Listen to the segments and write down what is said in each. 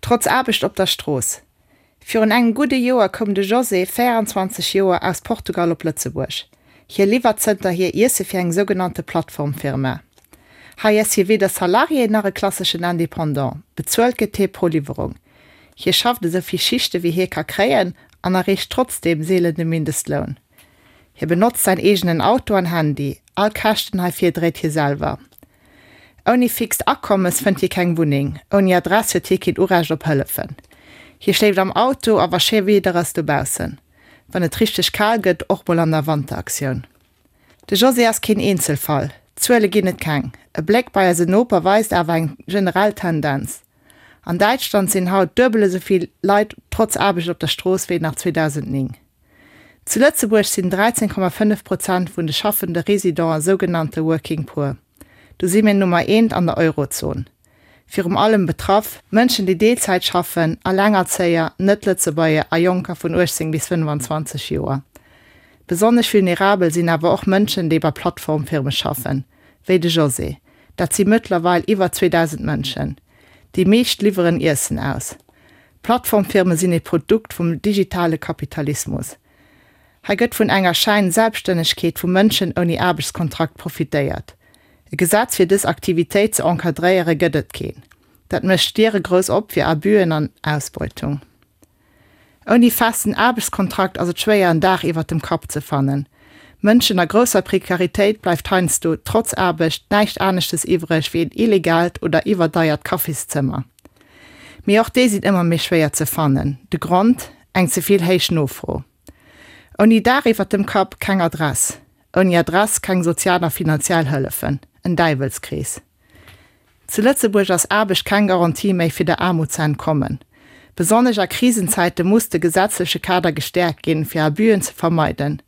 Trotz Aarbecht op der Strooss. Virun engem gudde Joer koum de José, 24 Joer, aus Portugal op Lëtzebuerg. Hie liwwert zënterhier Iesse fir eng sougenannte Plattformfirma. Hei ass hie weder Salarié nach e klasseschen Independant, bezuelt gëtt hie pro Liwwerung. Hie schafft esou vill Schichte wéi hie ka kréien an erreecht trotzdeem seelen de Mindestloun. Hie benotzt säin eegenen Auto an Handy, all Käschten heifir dréit hie selwer. Ouni fixt Akommes fënnt hie keng Wunneng, ouni Adress huet hie keen Urecht op Hëllefen. Hie schléift am Auto a wa schéi Wieder ass dobaussen, wann et richteg kal gëtt, och mol an der Wanteraktioun. De José ass keen Eenzelfall, Zuele ginn et keng. E Bléck bei eise Noper weist awer eng generell Tendenz. An Däitschland sinn haut duebel esou vill Leit trotz Aarbecht op der Strooss wéi nach 2009. Zu Lëtzebuerg sinn 13,5 Prozent vun de schaffende Residenten sougenannte Working Poor. Do si mir Nummer eent an der Eurozon. Virum allem betraff, Mënschen déi Deelzäit schaffen, Allengerzéier, Net-Lëtzebuerger a Jonker vun 18 bis 25 Joer. Besonnesch vulnerabel sinn awer och Mënschen déi bei Plattformfirme schaffen, wéi de José. Dat si mëttlerweil iwwer 2.000 Mënschen. Déi meescht liwweren Iessen aus. Plattformfirme sinn ee Produkt vum digitale Kapitalismus. Hei gëtt vun enger Schäin-Selbststännegkeet vu Mënschen ouni Aarbechtskontrakt profitéiert. E Gesetz fir dës Aktivitéit ze encadréiere gëtt et keen. Dat mécht d'Diere grouss op fir Abüen an Ausbeutung. Ouni festen Aarbechtskontrakt ass et schwéier en Daach iwwert dem Kapp ze fannen. Mënschen a grousser Prekaritéit bleift heiansdo, trotz Aarbecht, näischt aneschtes iwwreg wéi en illegaalt oder iwwerdeiert Kaffiszëmmer. Mee och déi sinn ëmmer méi schwéier ze fannen. De Grond, eng ze vill héich Nofro. Ouni Daach iwwert dem Kapp, keng Adress. Ouni Adress, keng sozial a finanziell Hëllefen. En Däiwelskrees. Zu Lëtzebuerg ass Aarbecht keng Garantie méi fir der Aarmut ze entkommen. Besonnesch a Krisenzäite muss de gesetzleche Kader gestäerkt ginn, fir Abüen ze vermeiden.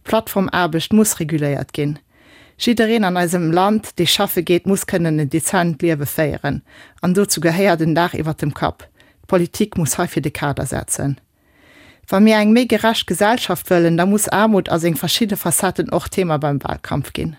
Plattformaarbecht muss reguléiert ginn. Jiddereen an eisem Land, dee schaffe geet, muss kënnen en dezent Liewe féieren. An dozou gehéiert en Daach iwwert dem Kapp. D'Politik muss heifir de Kader setzen. Wa mir eng méi gerecht Gesellschaft wëllen, da muss Aarmut a seng verschidde Facetten och Thema beim Wahlkampf ginn.